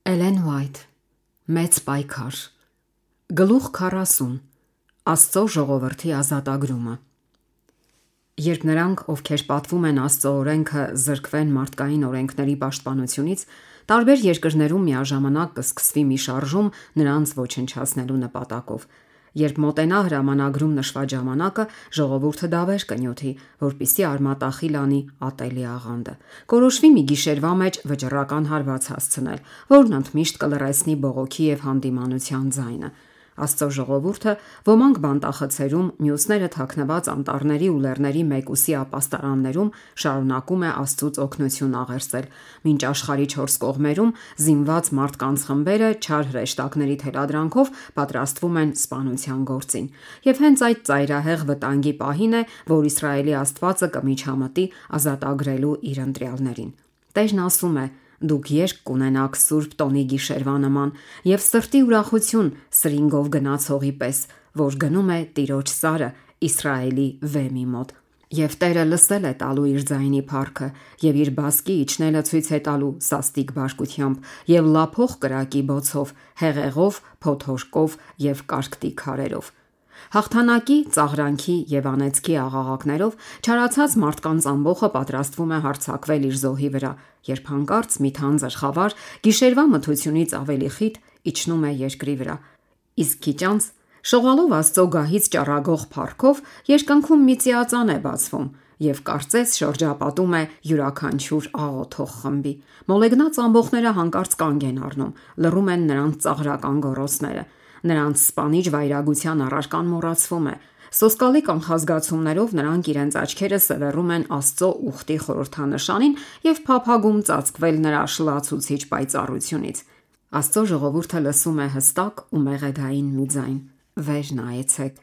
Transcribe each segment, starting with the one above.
Էլեն Ուայթ Մեծ պայքար Գլուխ 40 Աստծո ժողովրդի ազատագրումը Երբ նրանք, ովքեր պատվում են Աստծո օրենքը, զրկվեն մարդկային օրենքների պաշտպանությունից, տարբեր երկրներում միաժամանակ կսկսվի մի շարժում նրանց ոչնչացնելու նպատակով։ Երբ մոտենա հրամանագրում նշված ժամանակը, ժողովուրդը դավեր կնյութի, որպիսի արմատախիլ անի ատելի աղանդը։ Կորոշվի մի գիշերվա մեջ վճռական հարված հասցնել, որն ընդմիշտ կլռեցնի բողոքի եւ հանդիմանության ձայնը։ Աստծո ժողովուրդը ոմանք բանտախցերում, մյուսները թաքնված անտառների ու լեռների մեկուսի ապաստարաններում շարունակում է Աստծուց օգնություն աղերսել, մինչ աշխարհի 4 կողմերում զինված մարդկանց խմբերը չար հրեշտակների թելադրանքով պատրաստվում են սպանության գործին։ Եվ հենց այդ ծայրահեղ վտանգի պահին է, որ Իսրայելի Աստվածը կմիջամտի ազատագրելու իր ընտրյալներին։ Տերն ասում է. «Դուք երկ կունենաք Սուրբ տոնի գիշերվա նման եւ սրտի ուրախություն սրինգով գնացողի պես, որ գնում է Տիրոջ սարը Իսրայելի վեմի մոտ։ Եվ Տերը լսել է տալու իր ձայնի փառքը եւ իր բասկի իջնելը ցույց է տալու սաստիկ բարկությամբ եւ լափող կրակի բոցով, հեղեղով, փոթորկով եւ կարկտի քարերով։ Հաղթանակի, ծաղրանքի եւ անեծքի աղաղակներով չարացած մարդկանց ամբողը պատրաստվում է հարձակվել իր զոհի վրա, երբ հանկարծ մի թանձր խավար գիշերվա մթությունից ավելի խիտ իջնում է երկրի վրա։ Իսկ քիչ անց, շողալով Աստծո գահից ճառագող փառքով, երկնքում մի ծիածան է բացվում եւ կարծես շրջապատում է յուրաքանչյուր աղոթող խմբի։ Մոլեգնած ամբողները հանկարծ կանգ են առնում, լռում են նրանց ծաղրական գոռոցները։ Նրանց սպանիչ վայրագության առարկան մոռացվում է։ Սոսկալի կանխազգացումներով նրանք իրենց աչքերը սևեռում են Աստծո ուխտի խորհրդանշանին եւ փափագում ծածկվել նրա շլացուցիչ պայծառությունից։ Աստծո ժողովուրդը լսում է հստակ ու մեղեդային մի ձայն. «Վեր նայեցեք»։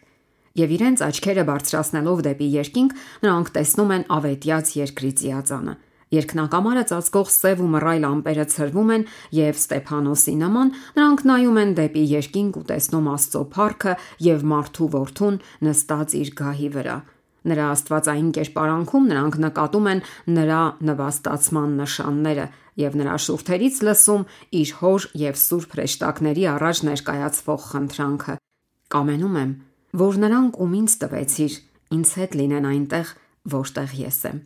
Եվ իրենց աչքերը բարձրացնելով դեպի երկինք, նրանք տեսնում են ավետյաց երկրի ծիածանը։ Երկնակամարը ծածկող սև ու մռայլ ամպերը ցրվում են եւ Ստեփանոսի նման նրանք նայում են դեպի երկինք ու տեսնում Աստծո փառքը եւ մարդու որդուն նստած իր գահի վրա։ Նրա աստվածային կերպարանքում նրանք նկատում են նրա նվաստացման նշանները եւ նրա շուրթերից լսում իր հոր եւ սուրբ հրեշտակների առաջ ներկայացվող խնդրանքը. «Կամենում եմ, որ նրանք, ում ինձ տվեցիր, ինձ հետ լինեն այնտեղ, որտեղ ես եմ»։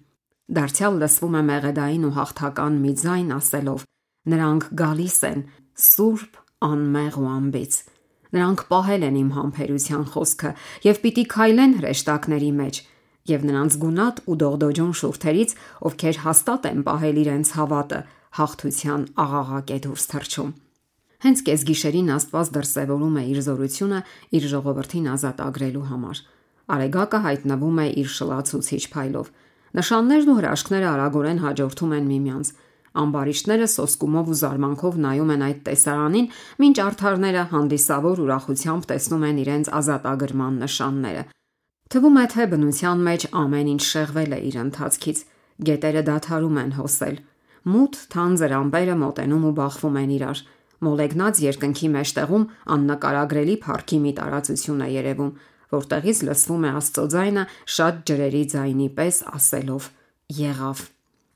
Դարձյալ լսվում է մեղեդային ու հաղթական մի ձայն ասելով. «Նրանք գալիս են սուրբ, անմեղ ու անբիծ»։ Նրանք պահել են իմ համբերության խոսքը եւ պիտի քայլեն հրեշտակների մեջ, եւ նրանց գունատ ու դողդոջուն շուրթերից, ովքեր հաստատ են պահել իրենց հավատը, հաղթության աղաղակ է դուրս թռչում։ Հենց կեսգիշերին Աստված դրսևորում է իր զորությունը իր ժողովրդին ազատագրելու համար։ Արեգակը հայտնվում է իր շլացուցիչ փայլով։ Նշաններն ու հրաշքները արագորեն հաջորդում են միմյանց։ Ամբարիշտները սոսկումով ու զարմանքով նայում են այդ տեսարանին, մինչ արդարները հանդիսավոր ուրախությամբ տեսնում են իրենց ազատագրման նշանները։ Թվում է, թե բնության մեջ ամեն ինչ շեղվել է իր ընթացքից։ Գետերը դադարում են հոսել։ Մութ թանձր ամպերը մոտենում ու բախվում են իրար։ Մոլեգնած երկնքի մեջտեղում աննկարագրելի փառքի մի տարածություն է երևում, որտեղից լսվում է Աստծո ձայնը շատ ջրերի ձայնի պես ասելով. «Եղավ»։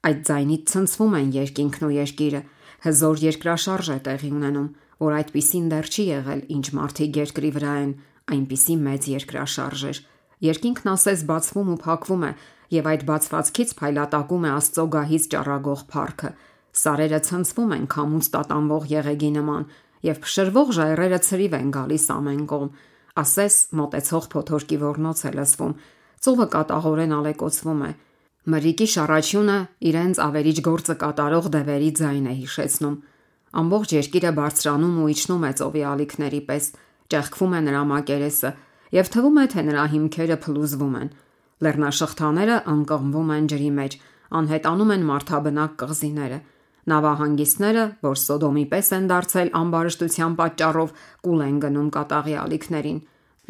Այդ ձայնից ցնցվում են երկինքն ու երկիրը։ Հզոր երկրաշարժ է տեղի ունենում, որ այդպիսին դեռ չի եղել, ինչ մարդիկ երկրի վրա են, այնպիսի մեծ երկրաշարժ էր։ Երկինքն ասես բացվում ու փակվում է, եւ այդ բացվածքից փայլատակում է Աստծո գահից ճառագող փառքը։ Սարերը ցնցվում են քամուց տատանվող եղեգի նման, եւ փշրվող ժայռերը ցրիվ են գալիս ամեն կողմ։ Ասես մոտեցող փոթորկի ոռնոց է լսվում։ Ծովը կատաղորեն ալեկոծվում է։ Մրրիկի շառաչյունը իրենց ավերիչ գործը կատարող դևերի ձայն է հիշեցնում։ Ամբողջ երկիրը բարձրանում ու իջնում է ծովի ալիքների պես, ճեղքվում է նրա մակերեսը, եւ թվում է, թե նրա հիմքերը փլուզվում են։ Լեռնաշղթաները անկղմվում են ջրի մեջ, անհետանում են մարդաբնակ կղզիները։ Նավահանգիստները, որ Սոդոմի պես են դարձել ամբարշտության պատճառով, կուլ են գնում կատաղի ալիքներին։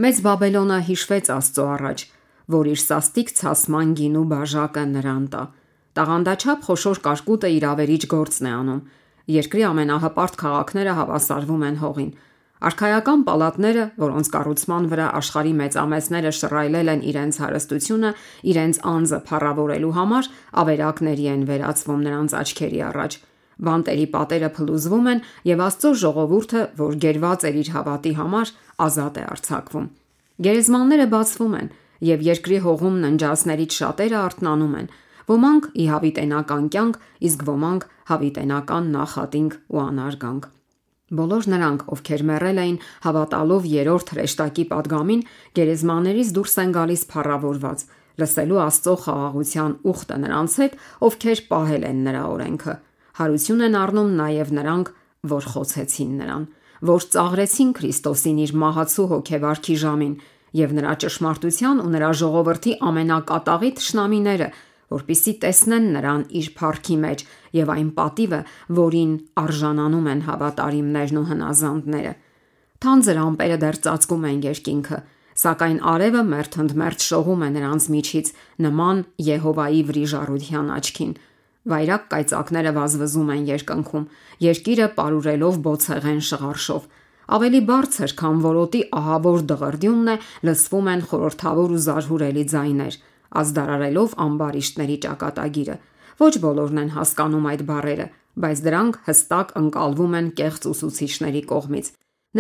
Մեծ Բաբելոնը հիշվեց Աստծո առաջ, որ իր սաստիկ ցասման գինու բաժակը նրան տա։ Տաղանդաչափ խոշոր կարկուտը իր ավերիչ գործն է անում։ Երկրի ամենահպարտ քաղաքները հավասարվում են հողին։ Արքայական պալատները, որոնց կառուցման վրա աշխարհի մեծամեծները շռայլել են իրենց հարստությունը, իրենց անձը փառավորելու համար, ավերակների են վերածվում նրանց աչքերի առաջ։ բանտերի պատերը փլուզվում են եւ Աստծո ժողովուրդը, որ գերված էր իր հավատի համար, ազատ է արձակվում։ Գերեզմանները բացվում են եւ երկրի հողում ննջածներից շատերը արթնանում են, ոմանք ի հավիտենական կյանք, իսկ ոմանք հավիտենական նախատինք ու անարգանք։ Բոլոր նրանք, ովքեր մեռել էին հավատալով երրորդ հրեշտակի падգամին, գերեզմաններից դուրս են գալիս փառավորված, լսելու Աստծո խաղաղության ուխտը նրանց հետ, ովքեր պահել են նրա օրենքը։ Հարություն են առնում նաև նրանք, որ խոցեցին նրան, որ ծաղրեցին Քրիստոսին իր մահացու հոգեվարքի ժամին, եւ նրա ճշմարտության ու նրա ժողովրդի ամենակատաղի թշնամիները, որպիսի տեսնեն նրան իր փառքի մեջ եւ այն պատիվը, որին արժանանում են հավատարիմներն ու հնազանդները։ Թանձր ամպերը դեռ ծածկում են երկինքը, սակայն արևը մերթընդմերթ շողում է նրանց միջից նման Եհովայի վրիժառության աչքին։ Վայրակ կայծակները վազվզում են երկնքում, երկիրը պարուրելով բոցեղեն շղարշով։ Ավելի բարձր, քան որոտի ահավոր դղրդյունն է, լսվում են խորհրդավոր ու զարհուրելի ձայներ, ազդարարելով ամբարիշտների ճակատագիրը։ Ոչ բոլորն են հասկանում այդ բառերը, բայց դրանք հստակ ընկալվում են կեղծ ուսուցիչների կողմից։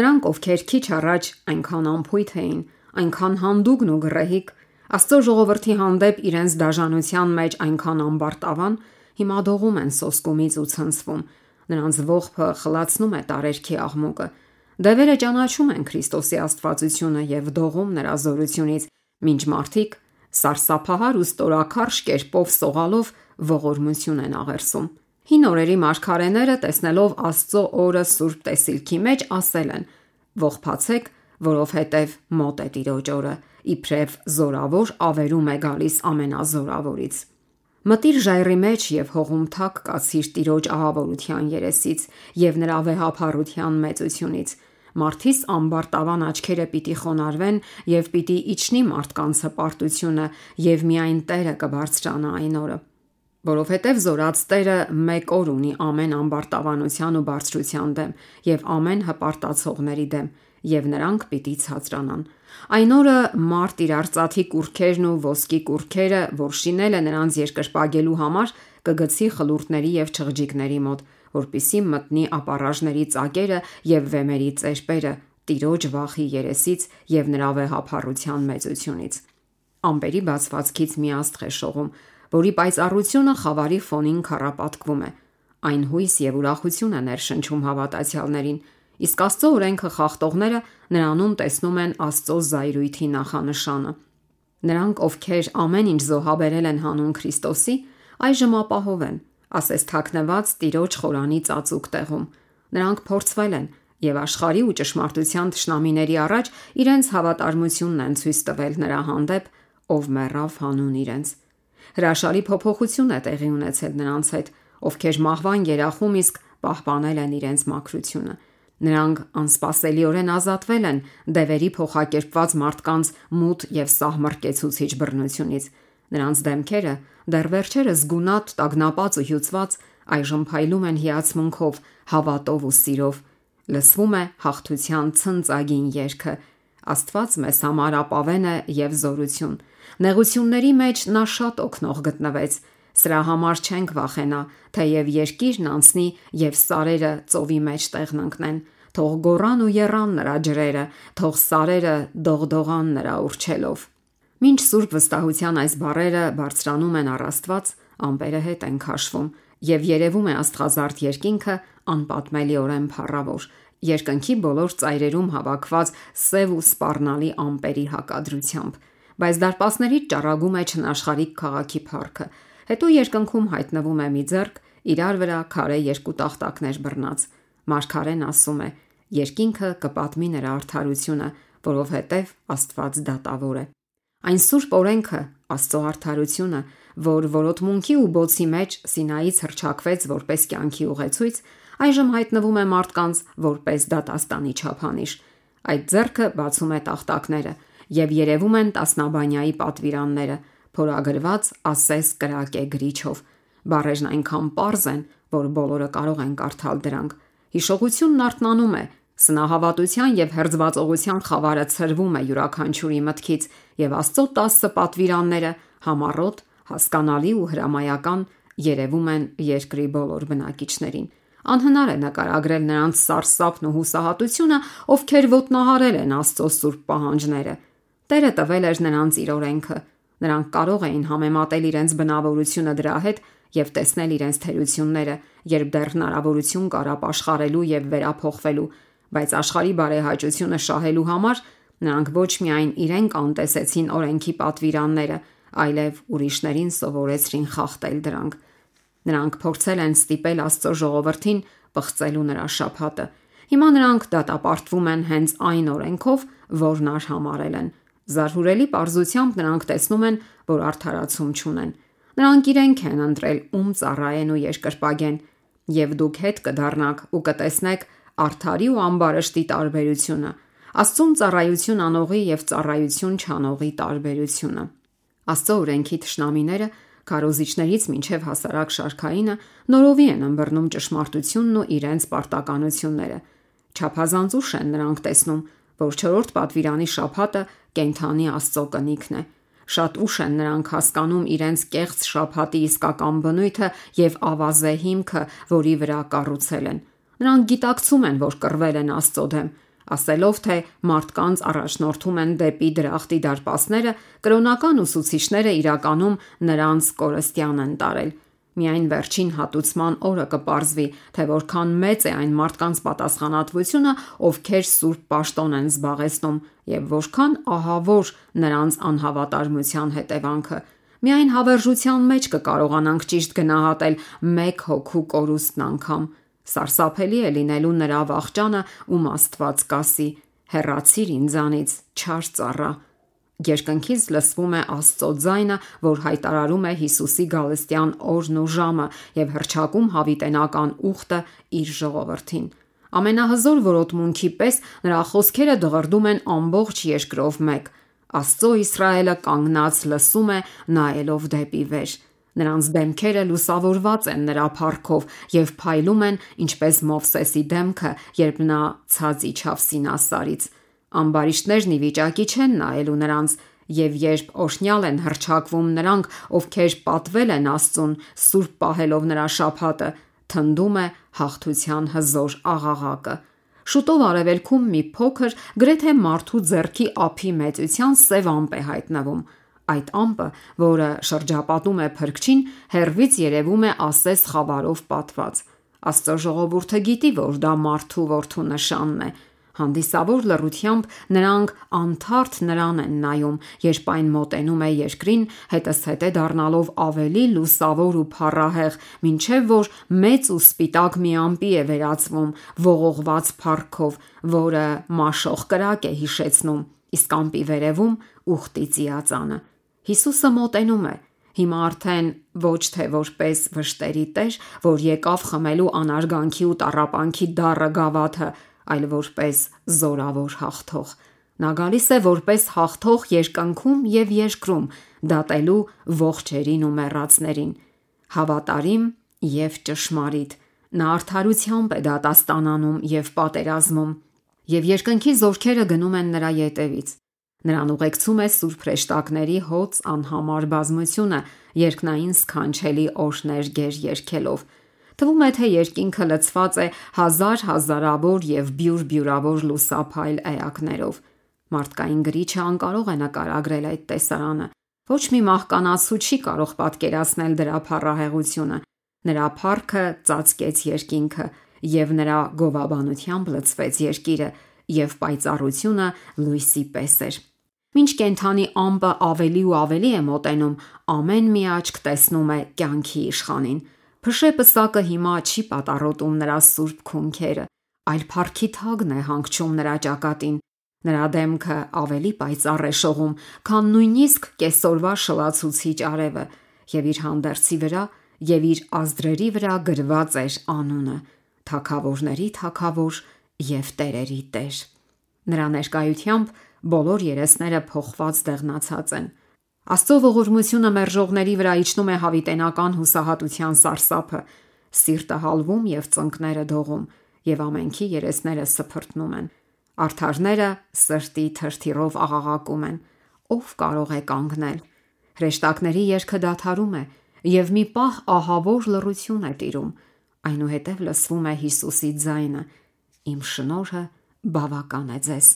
Նրանք, ովքեր քիչ առաջ այնքան անփույթ էին, այնքան հանդուգն ու գռեհիկ, Աստծո ժողովրդի հանդեպ իրենց դաժանության մեջ այնքան ամբարտավան, հիմա դողում են սոսկումից ու ցնցվում։ Նրանց ողբը խլացնում է տարերքի աղմուկը։ Դևերը ճանաչում են Քրիստոսի աստվածությունը եւ դողում նրա զորությունից, մինչ մարդիկ սարսափահար ու ստորաքարշ կերպով սողալով ողորմություն են աղերսում։ Հին օրերի մարգարեները, տեսնելով Աստծո օրը Սուրբ Տեսիլքի մեջ, ասել են. «Ողբացեք, որովհետև մոտ է Տիրոջ օրը, իբրև զորավոր ավերում է գալիս ամենազորավորից»։ Մտիր ժայռի մեջ եւ հողում թակ կացիր Տիրոջ ահավորության երեսից եւ նրա վեհափառության մեծությունից։ Մարդիս ամբարտավան աչքերը պիտի խոնարհվեն եւ պիտի իջնի մարդկանց հպարտությունը եւ միայն Տերը կբարձրանա այն օրը։ Որովհետև զորած Տերը մեկ օր ունի ամեն ամբարտավանության ու բարձրության դեմ եւ ամեն հպարտացողների դեմ, եւ նրանք պիտի ցածրանան։ Այն օրը մարդ իր արծաթի կուրքերն ու ոսկի կուրքերը, որ շինել է նրանց երկրպագելու համար, կգցի խլուրտների եւ չղջիկների մոտ, որպիսի մտնի ապառաժների ծակերը եւ վեմերի ծերպերը Տիրոջ վախի երեսից եւ նրա վեհափառության մեծությունից։ Ամպերի բացվածքից մի աստղ է շողում, որի պայծառությունը խավարի ֆոնին քառապատկվում է։ Այն հույս եւ ուրախություն է ներշնչում հավատացյալներին, իսկ Աստծո օրենքը խախտողները նրանում տեսնում են Աստծո զայրույթի նախանշանը։ Նրանք, ովքեր ամեն ինչ զոհաբերել են հանուն Քրիստոսի, այժմ ապահով են, ասես թաքնված Տիրոջ խորանի ծածուկ տեղում։ Նրանք փորձվել են եւ աշխարհի ու ճշմարտության թշնամիների առաջ իրենց հավատարմությունն են ցույց տվել նրա հանդեպ, ով մեռավ հանուն իրենց։ Հրաշալի փոփոխություն է տեղի ունեցել նրանց հետ, ովքեր մահվան երախում իսկ պահպանել են իրենց մաքրությունը։ Նրանք անսպասելիորեն ազատվել են դևերի փոխակերպված մարդկանց մութ եւ սահմռկեցուցիչ բռնությունից։ Նրանց դեմքերը դեռ վերջերս գունատ, տագնապած ու հյուծված, այժմ փայլում են հիացմունքով, հավատով ու սիրով։ Լսվում է հաղթության ցնծագին երգը։ Աստված մեզ համար ապավեն է եւ զորություն։ Նեղությունների մեջ նա շատ օգնող գտնվեց։ Սրա համար չենք վախենա, թեև երկիրն անցնի եւ սարերը ծովի մեջ տեղն ընկնեն։ Թող գոռան ու եռան նրա ջրերը, թող սարերը դողդողան նրա ուրչելով։ Մինչ սուրբ վստահության այս բառերը բարձրանում են առ Աստված, ամպերը հետ են քաշվում եւ երևում է աստղազարդ երկինքը անպատմելիորեն փառավոր, երկնքի բոլոր ծայրերում հավաքված սև ու սպառնալի ամպերի հակադրությամբ, բայց դարպասներից ճառագում է չնաշխարհիկ քաղաքի փառքը։ Հետո երկնքում հայտնվում է մի ձեռք, իրար վրա քարե երկու տախտակներ բռնած։ Մարգարեն ասում է. երկինքը կպատմի նրա արդարությունը, որովհետև Աստված դատավոր է։ Այն սուրբ օրենքը, Աստծո արդարությունը, որ որոտմունքի ու բոցի մեջ Սինայից հռչակվեց որպես կյանքի ուղեցույց, այժմ հայտնվում է մարդկանց որպես դատաստանի չափանիշ։ Այդ ձեռքը բացում է տախտակները եւ երևում են տասնաբանյայի պատվիրանները, փորագրված ասես կրակե գրիչով։ Բառերն այնքան պարզ են, որ բոլորը կարող են կարդալ դրանք։ Հիշողությունն արթնանում է, սնահավատության եւ հերձվածողության խավարը ցրվում է յուրաքանչյուրի մտքից եւ Աստծո 10 պատվիրանները համառոտ, հասկանալի ու հրամայական երևում են երկրի բոլոր բնակիչներին։ Անհնար է նկարագրել նրանց սարսափն ու հուսահատությունը, ովքեր ոտնահարել են Աստծո սուրբ պահանջները։ Տերը տվել էր նրանց իր օրենքը։ Նրանք կարող էին համեմատել իրենց բնավորությունը դրա հետ եւ տեսնել իրենց թերությունները, երբ դեռ հնարավորություն կար ապաշխարելու եւ վերափոխվելու, բայց աշխարհի բարեհաճությունը շահելու համար նրանք ոչ միայն իրենք անտեսեցին օրենքի պատվիրանները, այլև ուրիշներին սովորեցրին խախտել դրանք։ Նրանք փորձել են ստիպել Աստծո ժողովրդին պղծելու նրա շաբաթը։ Հիմա նրանք դատապարտվում են հենց այն օրենքով, որն արհամարհել են։ Զարհուրելի պարզությամբ նրանք տեսնում են, որ արդարացում չունեն։ Նրանք իրենք են ընտրել ում ծառայեն ու երկրպագեն, եւ դուք հետ կդառնաք ու կտեսնեք արդարի ու ամբարշտի տարբերությունը, Աստծուն ծառայություն անողի եւ ծառայություն չանողի տարբերությունը։ Աստծո օրենքի թշնամիները քարոզիչներից մինչև հասարակ շարքայինը նորովի են ըմբռնում ճշմարտությունն ու իրենց պարտականությունները։ Չափազանց ուշ են նրանք տեսնում, որ 4-րդ պատվիրանի շաբաթը կենդանի Աստծո կնիքն է։ Շատ ուշ են նրանք հասկանում իրենց կեղծ շաբաթի իսկական բնույթը եւ ավազե հիմքը, որի վրա կառուցել են։ Նրանք գիտակցում են, որ կռվել են Աստծո դեմ, ասելով թե մարդկանց առաջնորդում են դեպի դրախտի դարպասները, կրոնական ուսուցիչները իրականում նրանց կորստյան են տարել։ Միայն վերջին հատուցման օրը կպարզվի, թե որքան մեծ է այն մարդկանց պատասխանատվությունը, ովքեր սուրբ պաշտոն են զբաղեցնում, եւ որքան ահավոր նրանց անհավատարմության հետևանքը։ Միայն հավերժության մեջ կկարողանանք ճիշտ գնահատել մեկ հոգու կորուստն անգամ։ Սարսափելի է լինելու նրա վախճանը, ում Աստված կասի. «Հեռացիր ինձանից, չար ծառա»։ Երկնքից լսվում է Աստծո ձայնը, որ հայտարարում է Հիսուսի գալստյան օրն ու ժամը եւ հռչակում հավիտենական ուխտը իր ժողովրդին։ Ամենահզոր որոտմունքի պես նրա խոսքերը դղրդում են ամբողջ երկրով մեկ։ Աստծո Իսրայելը կանգնած լսում է, նայելով դեպի վեր։ Նրանց դեմքերը լուսավորված են նրա փառքով եւ փայլում են, ինչպես Մովսեսի դեմքը, երբ նա ցած իջավ Սինասարից։ Ամբարիշտներն ի վիճակի չեն նայելու նրանց, եւ երբ օրհնյալ են հռչակվում նրանք, ովքեր պատվել են Աստծուն, սուրբ պահելով նրա շաբաթը, թնդում է հաղթության հզոր աղաղակը։ Շուտով արևելքում մի փոքր, գրեթե մարդու ձեռքի ափի մեծության սև ամպ է հայտնվում։ Այդ ամպը, որը շրջապատում է փրկչին, հեռվից երևում է ասես խավարով պատված։ Աստծո ժողովուրդը գիտի, որ դա մարդու որդու նշանն է։ Հանդիսավոր լռությամբ նրանք անթարթ նրան են նայում, երբ այն մոտենում է երկրին, հետզհետե դառնալով ավելի լուսավոր ու փառահեղ, մինչև որ մեծ ու սպիտակ մի ամպի է վերածվում, ողողված փառքով, որը մաշող կրակ է հիշեցնում, իսկ ամպի վերևում ուխտի ծիածանը։ Հիսուսը մոտենում է, հիմա արդեն ոչ թե որպես վշտերի տեր, որ եկավ խմելու անարգանքի ու տառապանքի դառը գավաթը, այլ որպես զորավոր հաղթող։ Նա գալիս է որպես հաղթող երկնքում եւ երկրում, դատելու ողջերին ու մեռածներին։ Հավատարիմ եւ ճշմարիտ, նա արդարությամբ է դատաստանանում եւ պատերազմում, եւ երկնքի զորքերը գնում են նրա ետևից։ Նրան ուղեկցում է սուրբ հրեշտակների հոծ անհամար բազմությունը, երկնային սքանչելի օրհներ գեր երգելով։ Թվում է, թե երկինքը լցված է հազարավոր եւ բյուրավոր լուսափայլ էակներով։ Մարդկային գրիչը անկարող է նկարագրել այդ տեսարանը։ Ոչ մի մահկանացու չի կարող պատկերացնել դրա փառահեղությունը։ Նրա փառքը ծածկեց երկինքը, եւ նրա գովաբանությամբ լցվեց երկիրը, եւ պայծառությունը լույսի պես էր։ Մինչ կենդանի ամպը ավելի ու ավելի է մոտենում, ամեն մի աչք տեսնում է կյանքի իշխանին։ Փշեպսակը հիմա չի պատառոտում նրա սուրբ քունքերը, այլ փառքի թագն է հանգչում նրա ճակատին։ Նրա դեմքը ավելի պայծառ է շողում, քան նույնիսկ կեսօրվա շլացուցիչ արևը, եւ իր հանդերձի վրա եւ իր ազդրերի վրա գրված էր անունը՝ Թագավորների Թագավոր եւ Տերերի Տեր։ Նրա ներկայությամբ բոլոր երեսները փոխված դեղնացած են։ Աստծո ողորմությունը մերժողների վրա իջնում է հավիտենական հուսահատության սարսափը, սիրտը հալվում եւ ծնկները դողում, եւ ամենքի երեսները սփռտնում են։ Արդարները սրտի թրթիրով աղաղակում են. ով կարող է կանգնել։ Հրեշտակների երգը դադարում է, եւ մի պահ ահավոր լռություն է տիրում, այնուհետև լսվում է Հիսուսի ձայնը. «Իմ շնորհը բավական է ձեզ»։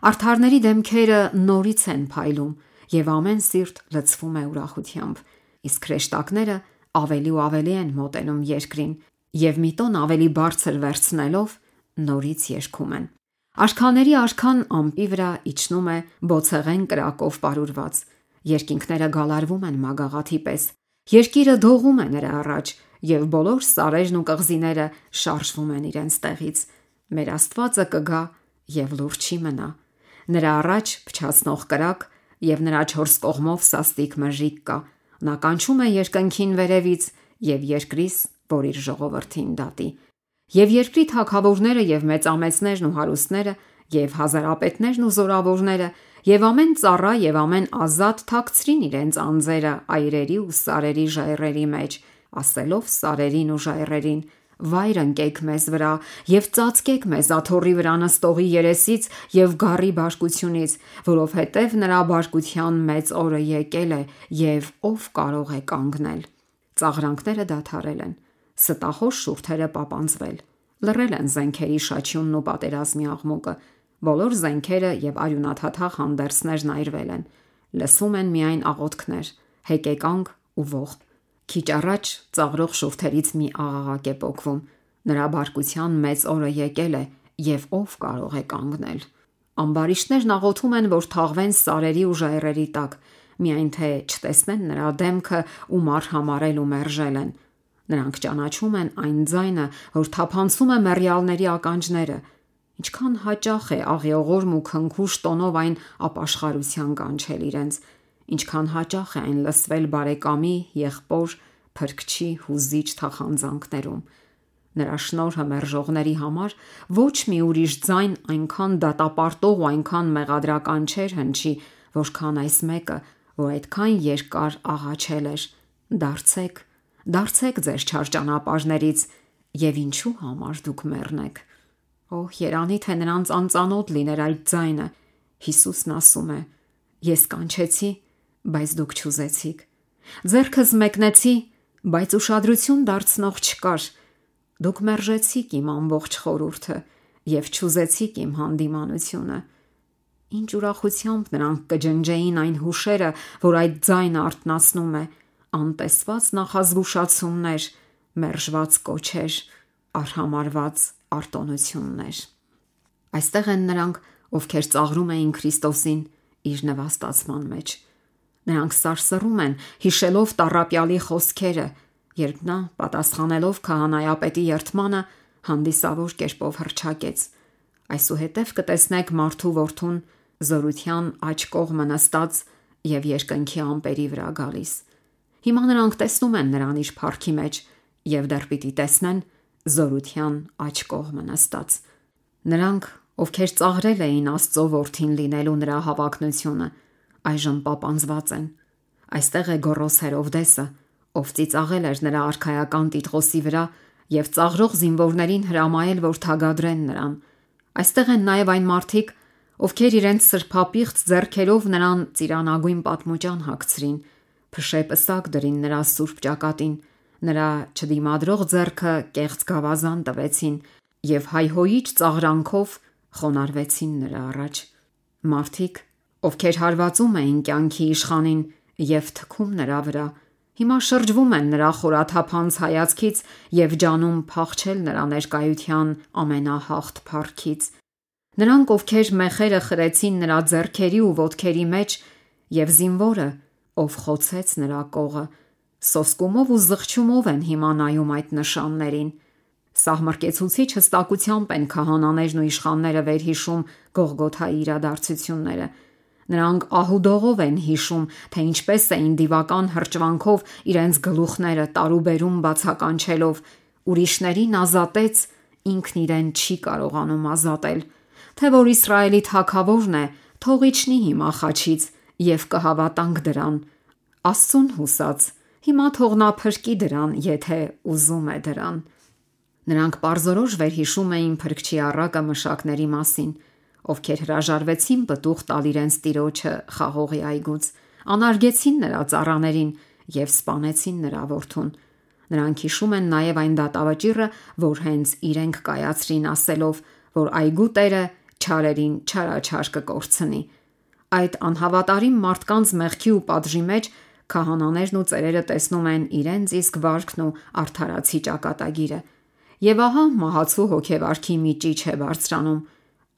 Արդարների դեմքերը նորից են փայլում եւ ամեն սիրտ լցվում է ուրախությամբ, իսկ հրեշտակները ավելի ու ավելի են մոտենում երկրին եւ մի տոն ավելի բարձր վերցնելով նորից երգում են։ Արքաների արքան ամպի վրա իջնում է բոցեղեն կրակով պարուրված, երկինքները գալարվում են մագաղաթի պես, երկիրը դողում է նրա առաջ եւ բոլոր սարերն ու կղզիները շարժվում են իրենց տեղից։ Մեր Աստվածը կգա եւ լուր չի մնա։ Նրա առաջ փչացնող կրակ եւ նրա 4 կողմով սաստիկ մժիկ կա։ Նա կանչում է երկնքին վերևից եւ երկրից, որ իր ժողովրդին դատի։ Եվ երկրի թագավորները եւ մեծամեծներն ու հարուստները եւ հազարապետներն ու զորավորները եւ ամեն ծառա եւ ամեն ազատ թաքցրին իրենց անձերը այրերի ու սարերի ժայռերի մեջ, ասելով սարերին ու ժայռերին. «Վայր ընկեք մեզ վրա եւ ծածկեք մեզ աթոռի վրա նստողի երեսից եւ գառի բարկությունից, որովհետեւ նրա բարկության մեծ օրը եկել է եւ ով կարող է կանգնել»։ Ծաղրանքները դադարել են, ստախոս շուրթերը պապանձվել, լռել են զենքերի շաչյունն ու պատերազմի աղմուկը, բոլոր զենքերը եւ արյունաթաթախ հանդերձներն այրվել են, լսվում են միայն աղոթքներ, հեկեկանք ու ողբ։ Քիչ առաջ ծաղրող շուրթերից մի աղաղակ է պոկվում. «Նրա բարկության մեծ օրը եկել է եւ ով կարող է կանգնել»։ Ամբարիշտներն աղոթում են, որ թաղվեն սարերի ու ժայռերի տակ, միայն թե չտեսնեն նրա դեմքը ու մար համարել ու մերժել են։ Նրանք ճանաչում են այն ձայնը, որ թափանցում է մեռյալների ականջները։ Ինչքան հաճախ է աղիողորմ ու քնքուշ տոնով այն ապաշխարության կանչել իրենց, ինչքան հաճախ է այն լսվել բարեկամի, եղբոր, փրկչի հուզիչ թախանձանքներում։ Նրա շնորհը մերժողների համար ոչ մի ուրիշ ձայն այնքան դատապարտող ու այնքան մեղադրական չէր հնչի, որքան այս մեկը, որ այդքան երկար աղաչել էր. «Դարձեք, դարձեք ձեր չար ճանապարհներից եւ ինչու համար դուք մեռնեք»։ Օհ, երանի թե նրանց անծանոթ լիներ այդ ձայնը։ Հիսուսն ասում է. «Ես կանչեցի, բայց դուք չուզեցիք, ձեռքս մեկնեցի, բայց ուշադրություն դարձնող չկար, դուք մերժեցիք իմ ամբողջ խորհուրդը եւ չուզեցիք իմ հանդիմանությունը»։ Ինչ ուրախությամբ նրանք կջնջեին այն հուշերը, որ այդ ձայնը արթնացնում է, անտեսված նախազգուշացումներ, մերժված կոչեր, արհամարհված արտոնություններ։ Այստեղ են նրանք, ովքեր ծաղրում էին Քրիստոսին իր նվաստացման մեջ։ Նրանք սարսռում են, հիշելով տառապյալի խոսքերը, երբ նա, պատասխանելով քահանայապետի երդմանը, հանդիսավոր կերպով հռչակեց. «Այսուհետև կտեսնեք մարդու որդուն զորության աջ կողմը նստած եւ երկնքի ամպերի վրա գալիս»։ Հիմա նրանք տեսնում են նրան իր փառքի մեջ եւ դեռ պիտի տեսնեն զորության աջ կողմը նստած։ Նրանք, ովքեր ծաղրել էին Աստծո որդին լինելու նրա հավակնությունը, այժմ պապանձված են։ Այստեղ է Գոռոս Հերովդեսը, ով ծիծաղել էր նրա արքայական տիտղոսի վրա եւ ծաղրող զինվորներին հրամայել, որ թագադրեն նրան։ Այստեղ են նաև այն մարդիկ, ովքեր իրենց սրբապիղծ ձեռքերով նրան ծիրանագույն պատմուճան հագցրին, փշե պսակ դրին նրա սուրբ ճակատին, նրա չդիմադրող ձեռքը կեղծ գավազան տվեցին եւ հայհոյիչ ծաղրանքով խոնարհվեցին նրա առաջ։ Մարդիկ, ովքեր հարվածում էին կյանքի իշխանին եւ թքում նրա վրա, հիմա շրջվում են նրա խորաթափանց հայացքից եւ ջանում փախչել նրա ներկայության ամենահաղթ փառքից։ Նրանք, ովքեր մեխերը խրեցին նրա ձեռքերի ու ոտքերի մեջ, եւ զինվորը, ով խոցեց նրա կողը, սոսկումով ու զղջումով են հիմա նայում այդ նշաններին։ Սահմռկեցուցիչ հստակությամբ են քահանաներն ու իշխանները վերհիշում Գողգոթայի իրադարձությունները։ Նրանք ահուդողով են հիշում, թե ինչպես էին դիվական հրճվանքով իրենց գլուխները տարուբերում բացականչելով, ուրիշներին ազատեց, ինքն իրեն չի կարողանում ազատել, թե որ Իսրայելի թագավորն է, թող իջնի հիմա խաչից եւ կհավատանք դրան։ Աստծուն հուսած, հիմա թող նա փրկի դրան, եթե ուզում է դրան։ Նրանք պարզորոշ վերհիշում էին փրկչի առակը մշակների մասին, ովքեր հրաժարվեցին պտուղ տալ իրենց տիրոջը խաղողի այգուց, անարգեցին նրա ծառաներին և սպանեցին նրա որդուն։ Նրանք հիշում են նաև այն դատավճիռը, որ հենց իրենք կայացրին, ասելով, որ այգու տերը չարերին չարաչար կկորցնի։ Այդ անհավատարիմ մարդկանց մեղքի ու պատժի մեջ քահանաներն ու ծերերը տեսնում են իրենց իսկ վարքն ու արդարացի ճակատագիրը։ Եվ ահա մահացու հոգեվարքի մի ճիչ է բարձրանում,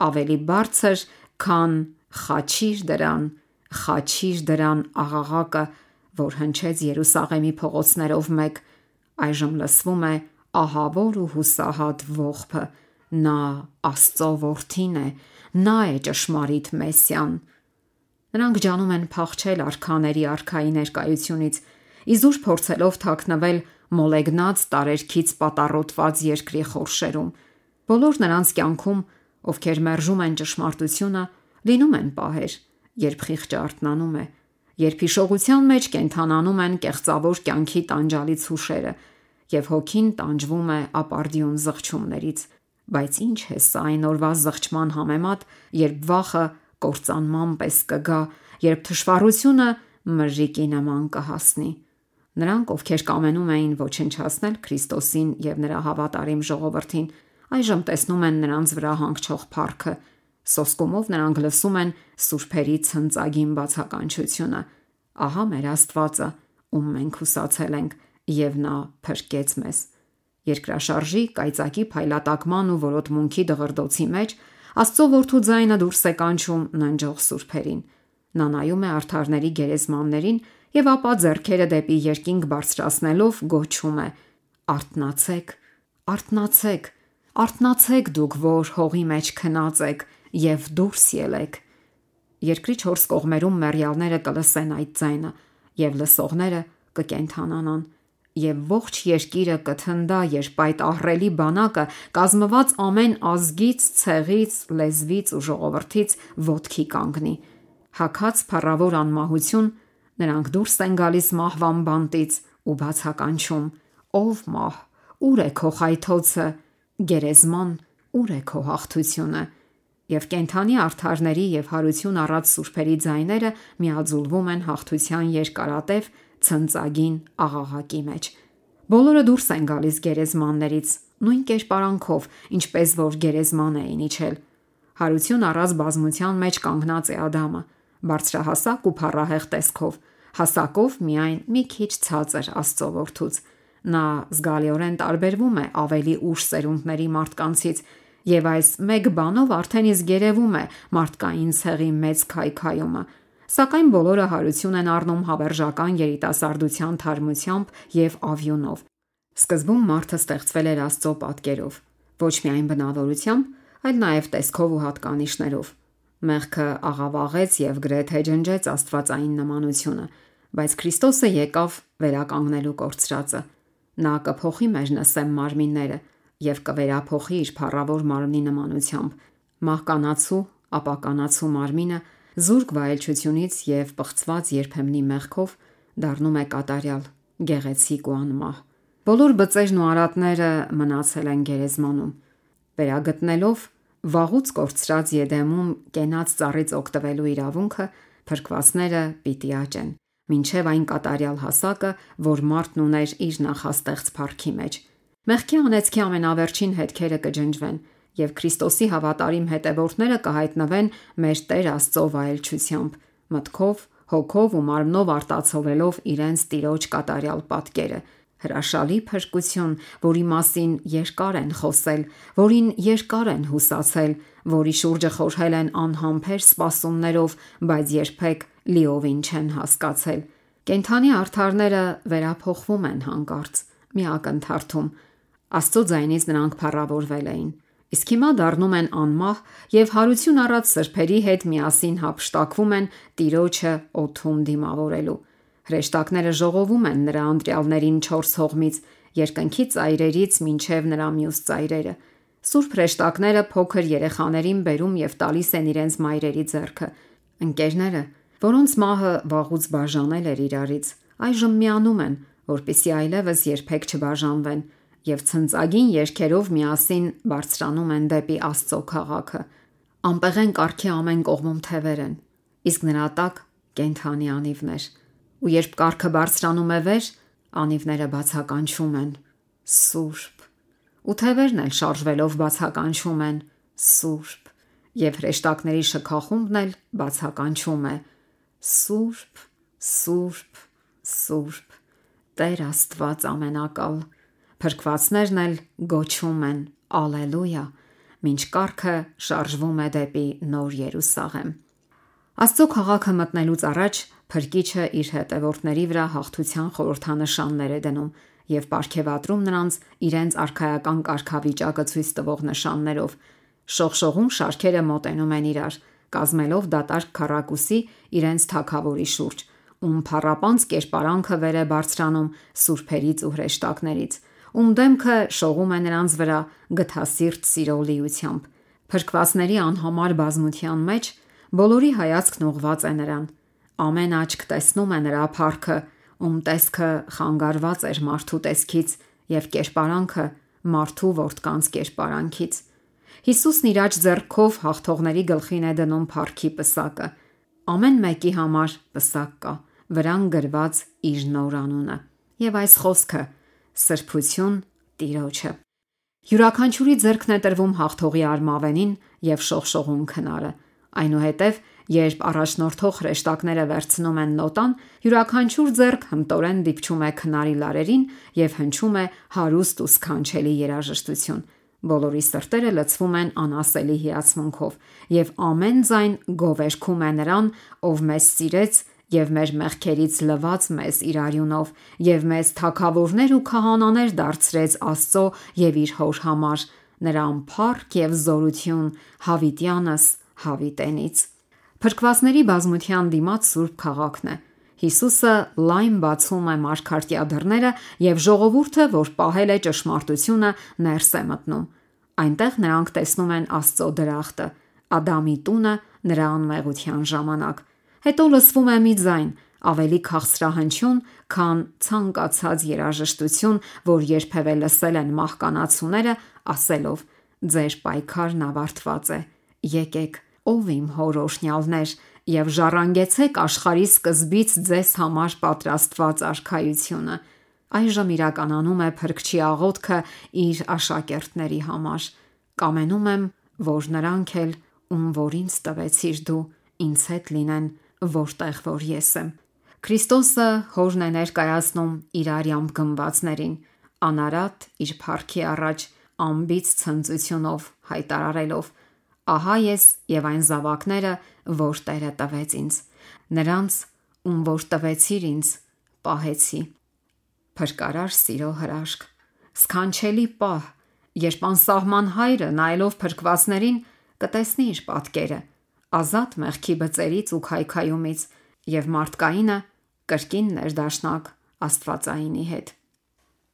ավելի բարձր, քան խաչիր դրան աղաղակը, որ հնչեց Երուսաղեմի փողոցներով մեկ, այժմ լսվում է ահավոր ու հուսահատ ողբը. նա Աստծո որդին է, նա է ճշմարիտ Մեսիան։ Նրանք ջանում են փախչել արքաների արքայի ներկայությունից, իզուր փորձելով թաքնվել մոլեգնած տարերքից պատառոտված երկրի խորշերում։ Բոլոր նրանց կյանքում, ովքեր մերժում են ճշմարտությունը, լինում են պահեր, երբ խիղճը արթնանում է, երբ հիշողության մեջ կենդանանում են կեղծավոր կյանքի տանջալից հուշերը, և հոգին տանջվում է ապարդյուն զղջումներից։ Բայց ինչ է սա այն օրվա զղջման համեմատ, երբ վախը կործանման պես կգա, երբ թշվառությունը մրրիկի նման կհասնի։ Նրանք, ովքեր կամենում էին ոչնչացնել Քրիստոսին և նրա հավատարիմ ժողովրդին, այժմ տեսնում են նրանց վրա հանգչող փառքը։ Սոսկումով նրանք լսում են սուրբերի ցնծագին բացականչությունը. ահա մեր Աստվածը, ում մենք հուսացել ենք, և նա փրկեց մեզ։ Երկրաշարժի, կայծակի փայլատակման ու որոտմունքի դղրդոցի մեջ Աստծո որդու ձայնը դուրս է կանչում ննջող սուրբերին։ Նա նայում է արդարների գերեզմաններին և ապա ձեռքերը դեպի երկինք բարձրացնելով գոչում է. «Արթնացեք, արթնացեք, արթնացեք դուք, որ հողի մեջ քնած եք և դուրս ելեք»։ Երկրի 4 կողմերում մեռյալները կլսեն այդ ձայնը, և լսողները կկենդանանան, և ողջ երկիրը կթնդա, երբ այդ ահռելի բանակը, կազմված ամեն ազգից, ցեղից, լեզվից ու ժողովրդից, ոտքի կանգնի։ Հագած փառավոր անմահություն, նրանք դուրս են գալիս մահվան բանտից ու բացականչում. «Ով մահ, ուր է քո խայթոցը, գերեզման, ուր է քո հաղթությունը»։ Եվ կենդանի արդարների և հարություն առած սուրբերի ձայները միաձուլվում են հաղթության երկարատև ցնծագին աղաղակի մեջ։ Բոլորը դուրս են գալիս գերեզմաններից, նույն կերպարանքով, ինչպես որ գերեզման էին իջել։ Հարություն առած բազմության մեջ կանգնած է Ադամը, բարձրահասակ ու փառահեղ տեսքով, հասակով միայն մի քիչ ցածր Աստծո որդուց։ Նա զգալիորեն տարբերվում է ավելի ուշ սերունդների մարդկանցից, և այս մեկ բանով արդեն իսկ երևում է մարդկային ցեղի մեծ քայքայումը։ Սակայն բոլորը հարություն են առնում հավերժական երիտասարդության թարմությամբ և ավյունով։ Սկզբում մարդը ստեղծվել էր Աստծո պատկերով, ոչ միայն բնավորությամբ, այլ նաև տեսքով ու հատկանիշներով։ Մեղքը աղավաղեց և գրեթե ջնջեց աստվածային նմանությունը, բայց Քրիստոսը եկավ վերականգնելու կորցրածը։ Նա կփոխի մեր նսեմ մարմինները և կվերափոխի իր փառավոր մարմնի նմանությամբ։ Մահկանացու, ապականացու մարմինը զուրկ վայելչությունից և պղծված երբեմնի մեղքով դառնում է կատարյալ, գեղեցիկ ու անմահ։ Բոլոր բծերն ու արատները մնացել են գերեզմանում։ Վերագտնելով վաղուց կորցրած Եդեմում կենաց ծառից օգտվելու իրավունքը, փրկվածները պիտի աճեն, մինչև այն կատարյալ հասակը, որ մարդն ուներ իր նախաստեղծ փառքի մեջ։ Մեղքի անեծքի ամենավերջին հետքերը կջնջվեն, և Քրիստոսի հավատարիմ հետևորդները կհայտնվեն մեր Տեր Աստծո վայելչությամբ, մտքով, հոգով ու մարմնով արտացոլելով իրենց Տիրոջ կատարյալ պատկերը։ Հրաշալի փրկություն, որի մասին երկար են խոսել, որին երկար են հուսացել, որի շուրջը խորհել են անհամբեր սպասումներով, բայց երբեք լիովին չեն հասկացել։ Կենդանի արդարները վերափոխվում են հանկարծ, մի ակնթարթում։ Աստծո ձայնից նրանք փառավորվել էին, իսկ հիմա դառնում են անմահ և հարություն առած սրբերի հետ միասին հափշտակվում են Տիրոջը օդում դիմավորելու։ Հրեշտակները ժողովում են նրա ընտրյալներին 4 հողմից, երկնքի ծայրերից մինչև նրա մյուս ծայրերը։ Սուրբ հրեշտակները փոքր երեխաներին բերում և տալիս են իրենց մայրերի ձեռքը։ Ընկերները, որոնց մահը վաղուց բաժանել էր իրարից, այժմ միանում են, որպեսզի այլևս երբեք չբաժանվեն, և ցնծագին երգերով միասին բարձրանում են դեպի Աստծո քաղաքը։ Անպեղեն կառքի ամեն կողմում թևեր են, իսկ նրա տակ կենդանի անիվներ։ ու երբ կառքը բարձրանում է վեր, անիվները բացականչում են. Սուրբ։ Ու թևերն էլ շարժվելով բացականչում են. Սուրբ։ Եվ հրեշտակների շքախումբն էլ բացականչում է. Սուրբ, Սուրբ, Սուրբ, Տեր Աստված ամենակալ։ Փրկվածներն էլ գոչում են. Ալելույա, մինչ կառքը շարժվում է դեպի Նոր Երուսաղեմ։ Աստծո քաղաքը մտնելուց առաջ Փրկիչը իր հետևորդների վրա հաղթության խորհրդանշաններ է դնում եւ պարգևատրում նրանց իրենց արքայական կարգավիճակը ցույց տվող նշաններով։ Շողշողուն շարքերը մոտենում են իրար, կազմելով դատարկ քառակուսի իրենց թագավորի շուրջ, ում փառապանծ կերպարանքը վեր է բարձրանում սուրբերից ու հրեշտակներից, ում դեմքը շողում է նրանց վրա գթասիրտ սիրո լիությամբ։ Փրկվածների անհամար բազմության մեջ բոլորի հայացքն ուղղված է նրան։ Ամեն աչք տեսնում է նրա փառքը, ում տեսքը խանգարված էր մարդու տեսքից եւ կերպարանքը մարդու որդկանց կերպարանքից։ Հիսուսն իր աջ ձեռքով հաղթողների գլխին է դնում փառքի պսակը։ Ամեն մեկի համար պսակ կա, վրան գրված իր նոր անունը։ Եվ այս խոսքը՝ սրբություն Տիրոջը։ Յուրաքանչյուրի ձեռքն է տրվում հաղթողի արմավենին եւ շողշողուն քնարը։ Այնուհետև, երբ առաջնորդող հրեշտակները վերցնում են նոտան, յուրաքանչյուր ձեռք հմտորեն դիպչում է քնարի լարերին եւ հնչում է հարուստ ու սքանչելի երաժշտություն։ Բոլորի սրտերը լցվում են անասելի հիացմունքով, եւ ամեն ձայն գովերգում է նրան, ով մեզ սիրեց եւ մեր մեղքերից լվաց մեզ իր արյունով եւ մեզ թագավորներ ու քահանաներ դարձրեց Աստծո եւ իր Հոր համար, նրան փառք եւ զորություն հավիտյանս հավիտենից։ Փրկվածների բազմության դիմաց սուրբ քաղաքն է։ Հիսուսը լայն բացում է մարգարտյա դռները եւ ժողովուրդը, որ պահել է ճշմարտությունը, ներս է մտնում։ Այնտեղ նրանք տեսնում են Աստծո դրախտը, Ադամի տունը նրա անմեղության ժամանակ։ Հետո լսվում է մի ձայն, ավելի քաղցրահնչյուն, քան ցանկացած երաժշտություն, որ երբևէ լսել են մահկանացուները, ասելով. Ձեր պայքարն ավարտված է։ Եկեք, ով իմ հոր օրհնյալներ, եւ ժառանգեցեք աշխարհի սկզբից ձեզ համար պատրաստված արքայությունը։ Այժմ իրականանում է Փրկչի աղոթքը իր աշակերտների համար։ Կամենում եմ, որ նրանք էլ, ում որ ինձ տվեցիր դու, ինձ հետ լինեն, որտեղ որ ես եմ։ Քրիստոսը Հորն է ներկայացնում իր արյամբ գնվածներին, անարատ իր փառքի առաջ անբիծ ցնծությունով հայտարարելով. Ահա ես եւ այն զավակները, որ Տերը տվեց ինձ, նրանց, ում որ տվեցիր ինձ, պահեցի։ Փրկարար սիրո հրաշք, սքանչելի պահ, երբ անսահման Հայրը նայելով փրկվածներին կտեսնի իր պատկերը, ազատ մեղքի բծերից ու քայքայումից, եւ մարդկայինը կրկին ներդաշնակ Աստվածայինի հետ։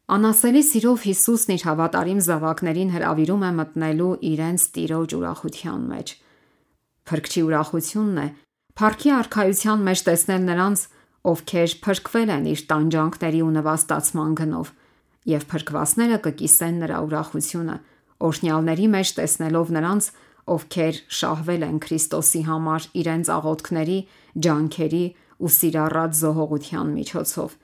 Անասելի սիրով Հիսուսն իր հավատարիմ զավակներին հրավիրում է մտնելու իրենց Տիրոջ ուրախության մեջ։ Փրկչի ուրախությունն է փառքի արքայության մեջ տեսնել նրանց, ովքեր փրկվել են իր տանջանքների ու նվաստացման գնով, եւ փրկվածները կկիսեն նրա ուրախությունը, օրհնյալների մեջ տեսնելով նրանց, ովքեր շահվել են Քրիստոսի համար իրենց աղոթքների, ջանքերի ու սիրառատ զոհողության միջոցով։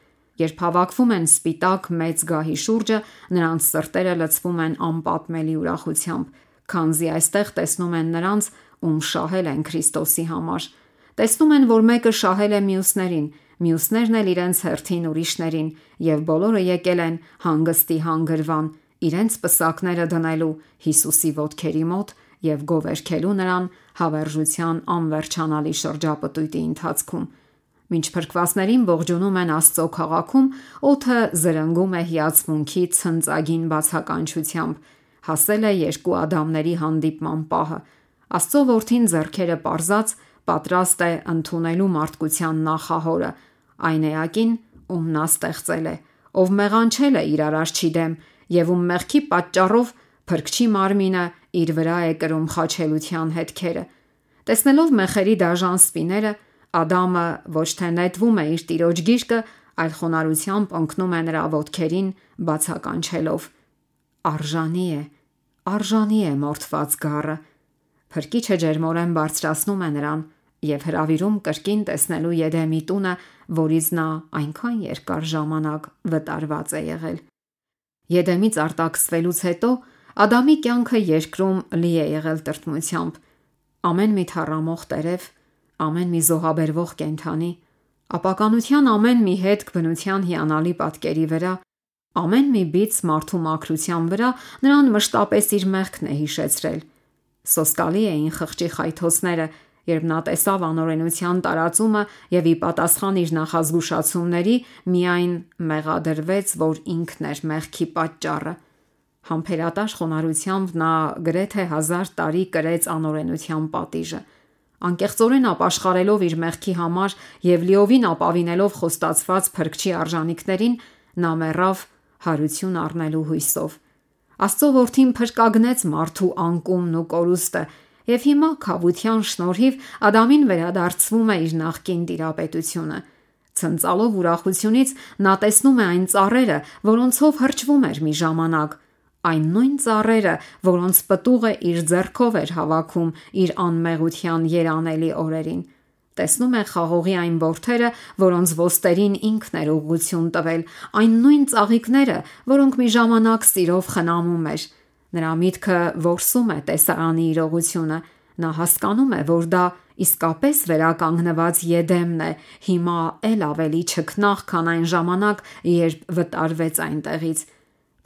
Երբ հավաքվում են սպիտակ մեծ գահի շուրջը, նրանց սրտերը լցվում են անպատմելի ուրախությամբ, քանզի այստեղ տեսնում են նրանց, ում շահել են Քրիստոսի համար։ Տեսնում են, որ մեկը շահել է մյուսներին, մյուսներն էլ իրենց հերթին ուրիշներին, եւ բոլորը եկել են հանգստի հանգրվան, իրենց պսակները դնելու Հիսուսի ոտքերի մոտ եւ գովերգելու նրան հավերժության անվերջանալի շրջապտույտի ընթացքում։ Մինչ փրկվածներին ողջունում են Աստծո քաղաքում, օդը զրնգում է հիացմունքի ցնծագին բացականչությամբ։ Հասել է երկու Ադամների հանդիպման պահը։ Աստծո որդին ձեռքերը պարզած պատրաստ է ընդունելու մարդկության նախահորը, այն էակին, ում նա ստեղծել է, ով մեղանչել է իր արարչի դեմ եւ ում մեղքի պատճառով Փրկչի մարմինը իր վրա է կրում խաչելության հետքերը։ Տեսնելով մեխերի դաժան սպիները, Ադամը ոչ թե նետվում է իր տիրոջ գիրկը, այլ խոնարհությամբ ընկնում է նրա ոտքերին, բացականչելով. Արժանի է մորթված գառը։ Փրկիչը ջերմորեն բարձրացնում է նրան, եւ հրավիրում կրկին տեսնելու Եդեմի տունը, որից նա այնքան երկար ժամանակ վտարված է եղել։ Եդեմից արտաքսվելուց հետո Ադամի կյանքը երկրում լի է եղել տրտմությամբ։ Ամեն մի թառամող տերև, ամեն մի զոհաբերվող կենդանի, ապականության ամեն մի հետք բնության հիանալի պատկերի վրա, ամեն մի բիծ մարդու մաքրության վրա նրան մշտապես իր մեղքն է հիշեցրել։ Սոսկալի էին խղճի խայթոցները, երբ նա տեսավ անօրենության տարածումը եւ ի պատասխան իր նախազգուշացումների միայն մեղադրվեց, որ ինքն էր մեղքի պատճառը։ Համբերատաշ խոնարհությամբ նա գրեթե 1000 տարի կրեց անօրենության պատիժը։ Անկեղծորեն ապաշխարելով իր մեղքի համար եւ լիովին ապավինելով խոստացված փրկչի արժանինքներին, նա մեռավ հարություն առնելու հույսով։ Աստծո որդին փրկագնեց մարդու անկումն ու կորուստը, եւ հիմա քավության շնորհիվ Ադամին վերադարձվում է իր նախկին տիրապետությունը։ Ցնծալով ուրախությունից նա տեսնում է այն ծառերը, որոնցով հրճվում էր մի ժամանակ, այն նույն ծառերը, որոնց պտուղը իր ձեռքով էր հավաքում իր անմեղության երանելի օրերին։ Տեսնում է խաղողի այն որդերը, որոնց ոստերին ինքն էր ուղղություն տվել, այն նույն ծաղիկները, որոնք մի ժամանակ սիրով խնամում էր։ Նրա միտքը որսում է տեսարանի իրողությունը։ Նա հասկանում է, որ դա իսկապես վերականգնված Եդեմն է, հիմա էլ ավելի չքնաղ, քան այն ժամանակ, երբ վտարվեց այնտեղից։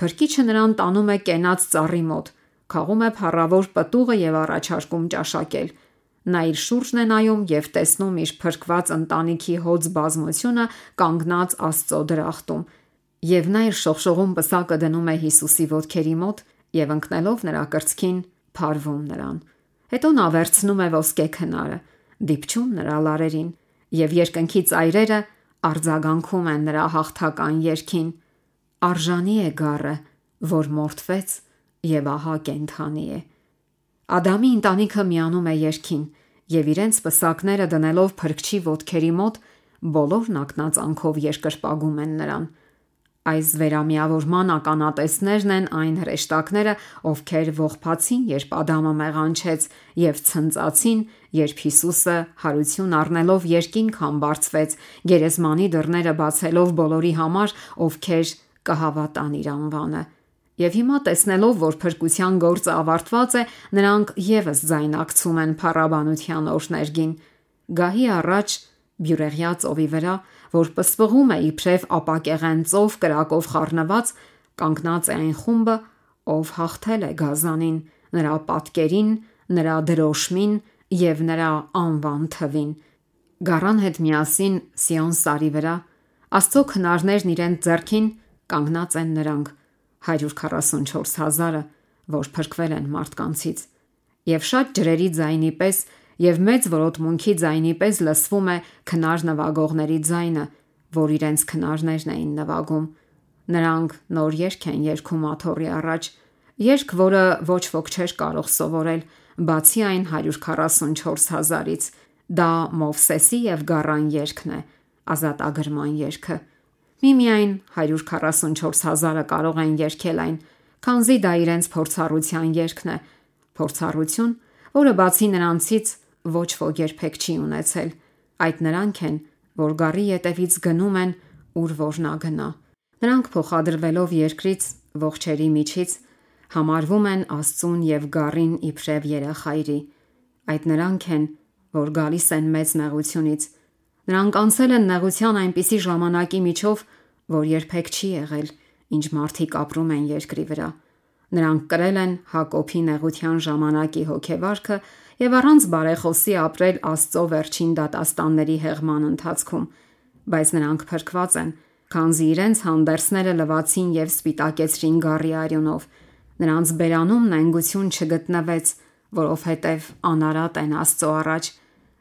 Փրկիչը նրան տանում է կենաց ծառի մոտ, քաղում է փառավոր պտուղը եւ առաջարկում ճաշակել։ Նա իր շուրջն է նայում եւ տեսնում իր փրկված ընտանիքի հոծ բազմությունը կանգնած Աստծո դրախտում, եւ նա իր շողշողուն պսակը դնում է Հիսուսի ոտքերի մոտ եւ ընկնելով նրա կրծքին փարվում նրան։ Հետո նա վերցնում է ոսկե քնարը, դիպչում նրա լարերին, եւ երկնքի ծայրերը արձագանքում են նրա հաղթական երգին։ Արժանի է գառը, որ մորթվեց եւ ահա կենդանի է։ Ադամի ընտանիքը միանում է երգին եւ իրենց պսակները դնելով փրկչի ոտքերի մոտ բոլորն ակնածանքով երկրպագում են նրան։ Այս վերամիավորման ականատեսներն են այն հրեշտակները, ովքեր ողբացին, երբ Ադամը մեղանչեց, եւ ցնծացին, երբ Հիսուսը հարություն առնելով երկինք բարձվեց, գերեզմանի դռները բացելով բոլորի համար, ովքեր կհավատան իր անվանը։ Եվ հիմա տեսնելով, որ փրկության գործը ավարտված է, նրանք եւս ձայնակցում են փառաբանության օրհներգին։ Գահի առաջ բյուրեղյա ծովի վրա, որ պսպղում է իբրև ապակեղեն ծով կրակով խառնված, կանգնած է այն խումբը, ով հաղթել է գազանին, նրա պատկերին, նրա դրոշմին եւ նրա անվան թվին։ Գառան հետ միասին Սիոն սարի վրա Աստծո քնարներն իրենց ձեռքին կանգնած են նրանք 144,000-ը, որ փրկվել են մարդկանցից, եւ շատ ջրերի ձայնի պես եւ մեծ որոտմունքի ձայնի պես լսվում է քնար նվագողների ձայնը, որ իրենց քնարներն էին նվագում։ Նրանք նոր երգ են երգում աթոռի առաջ, երգ, որը ոչ ոք չէր կարող սովորել, բացի այն 144,000-ից։ Դա Մովսեսի եւ Գառան երգն է, ազատագրման երգը։ Միմիայն 144,000-ը կարող են երգել այն, քանզի դա իրենց փորձառության երգն է, փորձառություն, որը բացի նրանցից ոչ ոք երբեք չի ունեցել։ Այդ նրանք են, որ գառի ետևից գնում են, ուր որ նա գնա։ Նրանք փոխադրվելով երկրից, ողջերի միջից, համարվում են Աստծուն եւ գառին իբրև երախայրի։ Այդ նրանք են, որ գալիս են մեծ նեղությունից։ Նրանք անցել են նեղության այնպիսի ժամանակի միջով, որ երբեք չի եղել, ինչ մարդիկ ապրում են երկրի վրա։ Նրանք կրել են Հակոբի նեղության ժամանակի հոգեվարքը եւ առանց բարեխոսի ապրել Աստծո վերջին դատաստանների հեղման ընթացքում, բայց նրանք փրկված են, քանզի իրենց հանդերձները լվացին եւ սպիտակեցրին գառի արյունով։ Նրանց բերանում նենգություն չգտնվեց, որովհետեւ անարատ են Աստծո առաջ։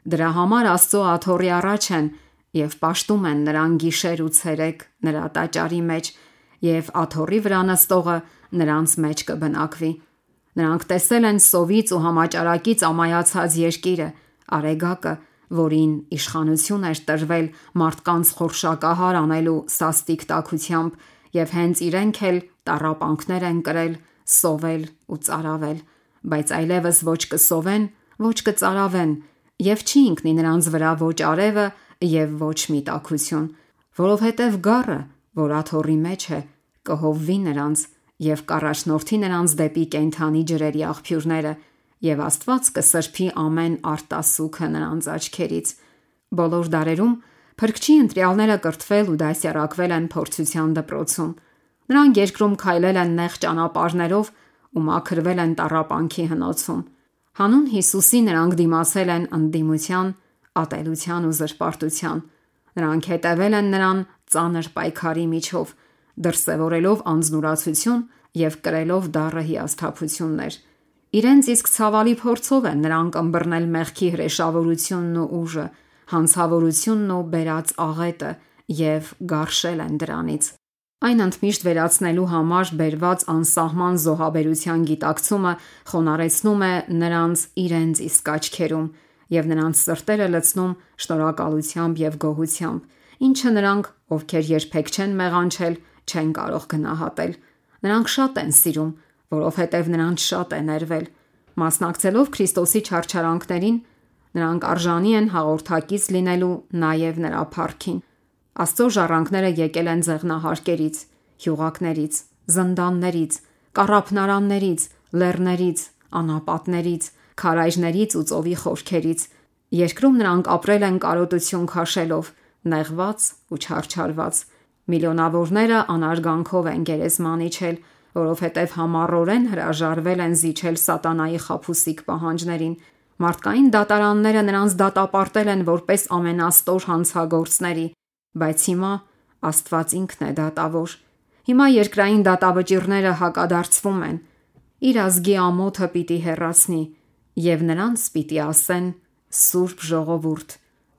Դրա համար Աստծո աթոռի առաջ են եւ պաշտում են նրան գիշեր ու ցերեկ նրա տաճարի մեջ, եւ աթոռի վրա նստողը նրանց մեջ կբնակվի։ Նրանք տեսել են սովից ու համաճարակից ամայացած երկիրը, արեգակը, որին իշխանություն էր տրվել մարդկանց խորշակահար անելու սաստիկ տաքությամբ, եւ հենց իրենք էլ տառապանքներ են կրել, սովել ու ծարավել, բայց այլևս ոչ կսովեն, ոչ կծարավեն, եւ չի ընկնի նրանց վրա ոչ արևը եւ ոչ մի տաքություն, որովհետեւ գառը, որ աթոռի մեջ է, կհովվի նրանց եւ կառաջնորդի նրանց դեպի կենդանի ջրերի աղբյուրները, եւ Աստված կսրբի ամեն արտասուքը նրանց աչքերից։ Բոլոր դարերում Փրկչի ընտրյալները կրթվել ու դասյարակվել են փորձության դպրոցում։ Նրանք երկրում քայլել են նեղ ճանապարհներով ու մաքրվել են տառապանքի հնոցում։ Հանուն Հիսուսի նրանք դիմացել են ընդդիմության, ատելության ու զրպարտության։ Նրանք հետևել են նրան ծանր պայքարի միջով, դրսևորելով անձնուրացություն եւ կրելով դառը հիասթափություններ։ Իրենց իսկ ցավալի փորձով են նրանք ըմբռնել մեղքի հրեշավորությունն ու ուժը, հանցավորությունն ու բերած աղետը եւ գարշել են դրանից։ Այն ընդմիշտ վերացնելու համար բերված անսահման զոհաբերության գիտակցումը խոնարեցնում է նրանց իրենց իսկ աչքերում եւ նրանց սրտերը լցնում շնորհակալությամբ եւ գոհությամբ, ինչը նրանք, ովքեր երբեք չեն մեղանչել, չեն կարող գնահատել։ Նրանք շատ են սիրում, որովհետև նրանց շատ է ներվել։ Մասնակցելով Քրիստոսի չարչարանքներին, նրանք արժանի են հաղորդակից լինելու նաև նրա փառքին։ Աստծո ժառանգները եկել են ձեղնահարկերից, հյուղակներից, զնդաններից, կառափնարաններից, լեռներից, անապատներից, քարայրներից ու ծովի խորքերից։ Երկրում նրանք ապրել են կարոտություն քաշելով, նեղված ու չարչարված։ Միլիոնավորները անարգանքով են գերեզման իջել, որովհետև համառորեն հրաժարվել են զիջել սատանայի խաբուսիկ պահանջներին։ Մարդկային դատարանները նրանց դատապարտել են որպես ամենաստոր հանցագործների, բայց հիմա Աստված ինքն է դատավոր։ Հիմա երկրային դատավճիռները հակադարձվում են։ Իր ազգի ամոթը պիտի հեռացնի եւ նրանց պիտի ասեն. Սուրբ ժողովուրդ,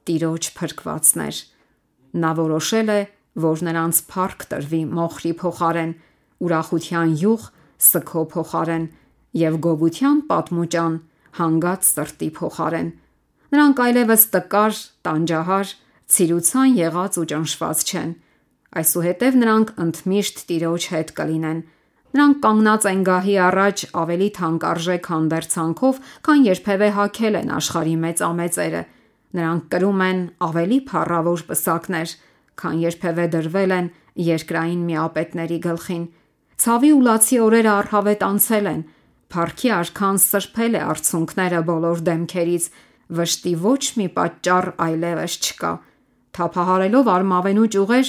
Տիրոջ փրկվածներ։ Նա որոշել է, որ նրանց փառք տրվի մոխրի փոխարեն, ուրախության յուղ սգո փոխարեն եւ գովության պատմուճան հանգած սրտի փոխարեն։ Նրանք այլևս տկար, տանջահար, ցիրուցան եղած ու ճնշված չեն։ Այսուհետև նրանք ընդմիշտ Տիրոջ հետ կլինեն։ Նրանք կանգնած են գահի առաջ ավելի թանկարժեք հանդերձանքով, քան երբևէ հագել են աշխարհի մեծամեծերը։ Նրանք կրում են ավելի փառավոր պսակներ, քան երբևէ դրվել են երկրային միապետների գլխին։ Ցավի ու լացի օրերը առհավետ անցել են։ Փառքի արքան սրբել է արցունքները բոլոր դեմքերից, վշտի ոչ մի պատճառ այլևս չկա։ Թափահարելով արմավենու ճյուղեր,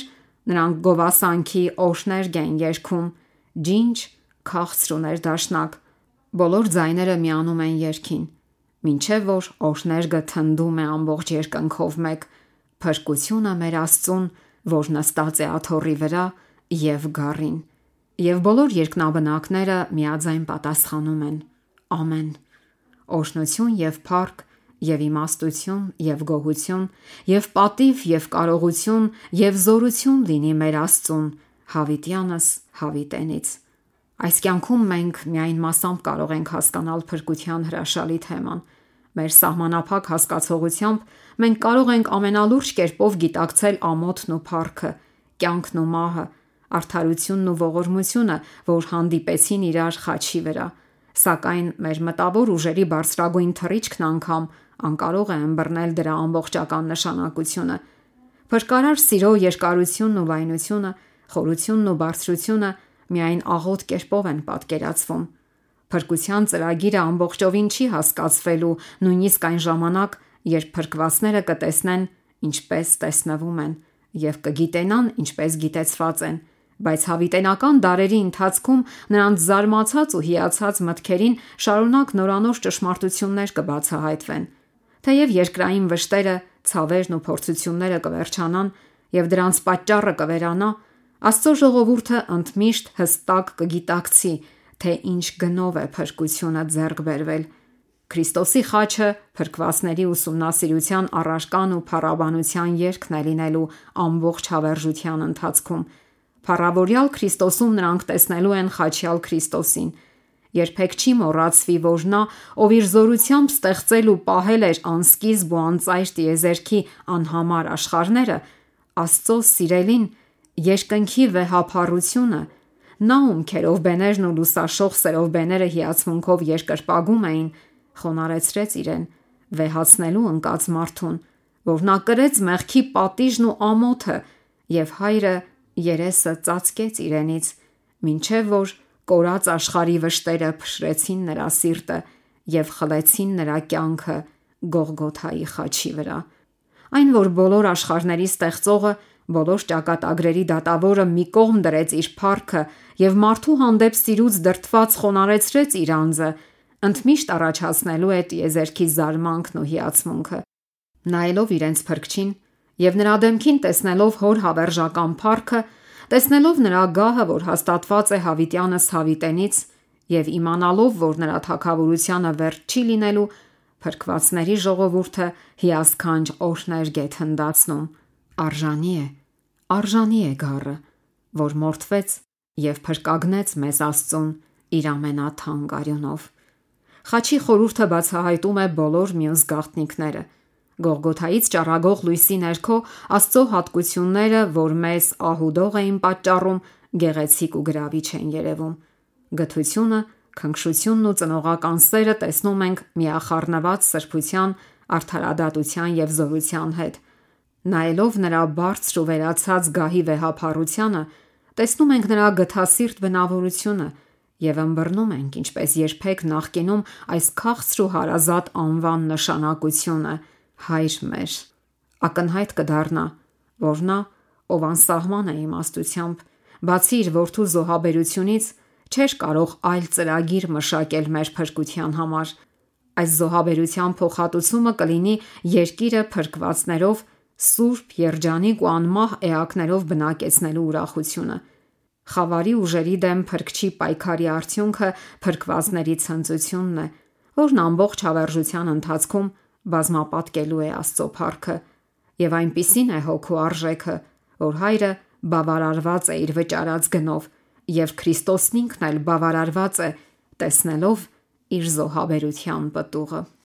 նրանք գովասանքի օրհներգ են երգում, ջինջ, քաղցր ու ներդաշնակ։ Բոլոր ձայները միանում են երգին, մինչև որ օրհներգը թնդում է ամբողջ երկնքով մեկ։ Փրկությունը մեր Աստծուն, որ նստած է աթոռի վրա, եւ գառին։ Եվ բոլոր երկնաբնակները միաձայն պատասխանում են. Ամեն։ Օրհնություն եւ փառք եւ իմաստություն եւ գոհություն եւ պատիվ եւ կարողություն եւ զորություն լինի մեր Աստծուն հավիտյանս հավիտենից։ Այս կյանքում մենք միայն մասամբ կարող ենք հասկանալ փրկության հրաշալի թեման։ Մեր սահմանափակ հասկացողությամբ մենք կարող ենք ամենալուրջ կերպով գիտակցել ամոթն ու փառքը, կյանքն ու մահը, արդարությունն ու ողորմությունը, որ հանդիպեցին իրար խաչի վրա, սակայն մեր մտավոր ուժերի բարձրագույն թռիչքն անգամ անկարող է ըմբռնել դրա ամբողջական նշանակությունը։ Փրկարար սիրո երկարությունն ու վայնությունը, խորությունն ու բարձրությունը միայն աղոտ կերպով են պատկերացվում։ Փրկության ծրագիրը ամբողջովին չի հասկացվելու նույնիսկ այն ժամանակ, երբ փրկվածները կտեսնեն, ինչպես տեսնվում են, եւ կգիտենան, ինչպես գիտեցված են, բայց հավիտենական դարերի ընթացքում նրանց զարմացած ու հիացած մտքերին շարունակ նորանոր ճշմարտություններ կբացահայտվեն։ Թեև երկրային վշտերը, ցավերն ու փորձությունները կվերջանան եւ դրանց պատճառը կվերանա, Աստծո ժողովուրդը ընդմիշտ հստակ կգիտակցի, թե ինչ գնով է փրկությունը ձեռք բերվել։ Քրիստոսի խաչը փրկվածների ուսումնասիրության առարկան ու փառաբանության երգն է լինելու ամբողջ հավերժության ընթացքում։ Փառավորյալ Քրիստոսում նրանք տեսնելու են խաչյալ Քրիստոսին։ Երբեք չի մոռացվի, որ նա, ով իր զորությամբ ստեղծել ու պահել էր անսկիզբ ու անծայր տիեզերքի անհամար աշխարհները, Աստծո սիրելին, երկնքի վեհափառությունը, նա ում քերովբեներն ու լուսաշող սերովբեները հիացմունքով երկրպագում էին, խոնարեցրեց իրեն, վեհացնելու ընկած մարդուն, որ նա կրեց մեղքի պատիժն ու ամոթը, եւ հայրը երեսը ծածկեց իրենից, մինչև որ կորած աշխարհի վշտերը փշրեցին նրա սիրտը եւ խլեցին նրա կյանքը Գողգոթայի խաչի վրա։ Այն, որ բոլոր աշխարհների ստեղծողը, բոլոր ճակատագրերի դատավորը մի կողմ դրեց իր փառքը եւ մարդու հանդեպ սիրուց դրդված խոնարհեցրեց իր անձը, ընդմիշտ առաջացնելու է տիեզերքի զարմանքն ու հիացմունքը։ Նայելով իրենց փրկչին եւ նրա դեմքին տեսնելով հոր հավերժական փառքը, տեսնելով նրա գահը, որ հաստատված է հավիտյանս հավիտենից, եւ իմանալով, որ նրա թագավորությանը վերջ չի լինելու, փրկվածների ժողովուրդը հիասքանչ օրհներ գեթնդացնում։ Արժանի է գառը, որ մորթվեց եւ փրկագնեց մեզ Աստծուն իր ամենաթանկ արյունով։ Խաչի խորհուրդը բացահայտում է բոլոր մյուս գաղտնիքները։ Գողգոթայից ճառագող լույսի ներքո Աստծո հատկությունները, որ մեզ ահուդող էին պատճառում, գեղեցիկ ու գրավիչ են երևում։ Գթությունը, քնքշությունն ու ծնողական սերը տեսնում ենք միախառնված սրբության, արդարադատության եւ զորության հետ։ Նայելով նրա բարձր ու վերացած գահի վեհափառությանը, տեսնում ենք նրա գթասիրտ բնավորությունը եւ ըմբռնում ենք, ինչպես երբեք նախկինում, այս քաղցր ու հարազատ անվան նշանակությունը՝ Հայր մեր։ Ակնհայտ կդառնա, որ նա, ով անսահման է իմաստությամբ, բացի իր որդու զոհաբերությունից, չէր կարող այլ ծրագիր մշակել մեր փրկության համար։ Այս զոհաբերության փոխհատուցումը կլինի երկիրը փրկվածներով, սուրբ, երջանիկ ու անմահ էակներով բնակեցնելու ուրախությունը։ Խավարի ուժերի դեմ փրկչի պայքարի արդյունքը փրկվածների ցնծությունն է, որն ամբողջ հավերժության ընթացքում բազմապատկելու է Աստծո փառքը, եւ այնպիսին է հոգու արժեքը, որ հայրը բավարարված է իր վճարած գնով, եւ Քրիստոսն ինքն էլ բավարարված է տեսնելով իր զոհաբերության պտուղը։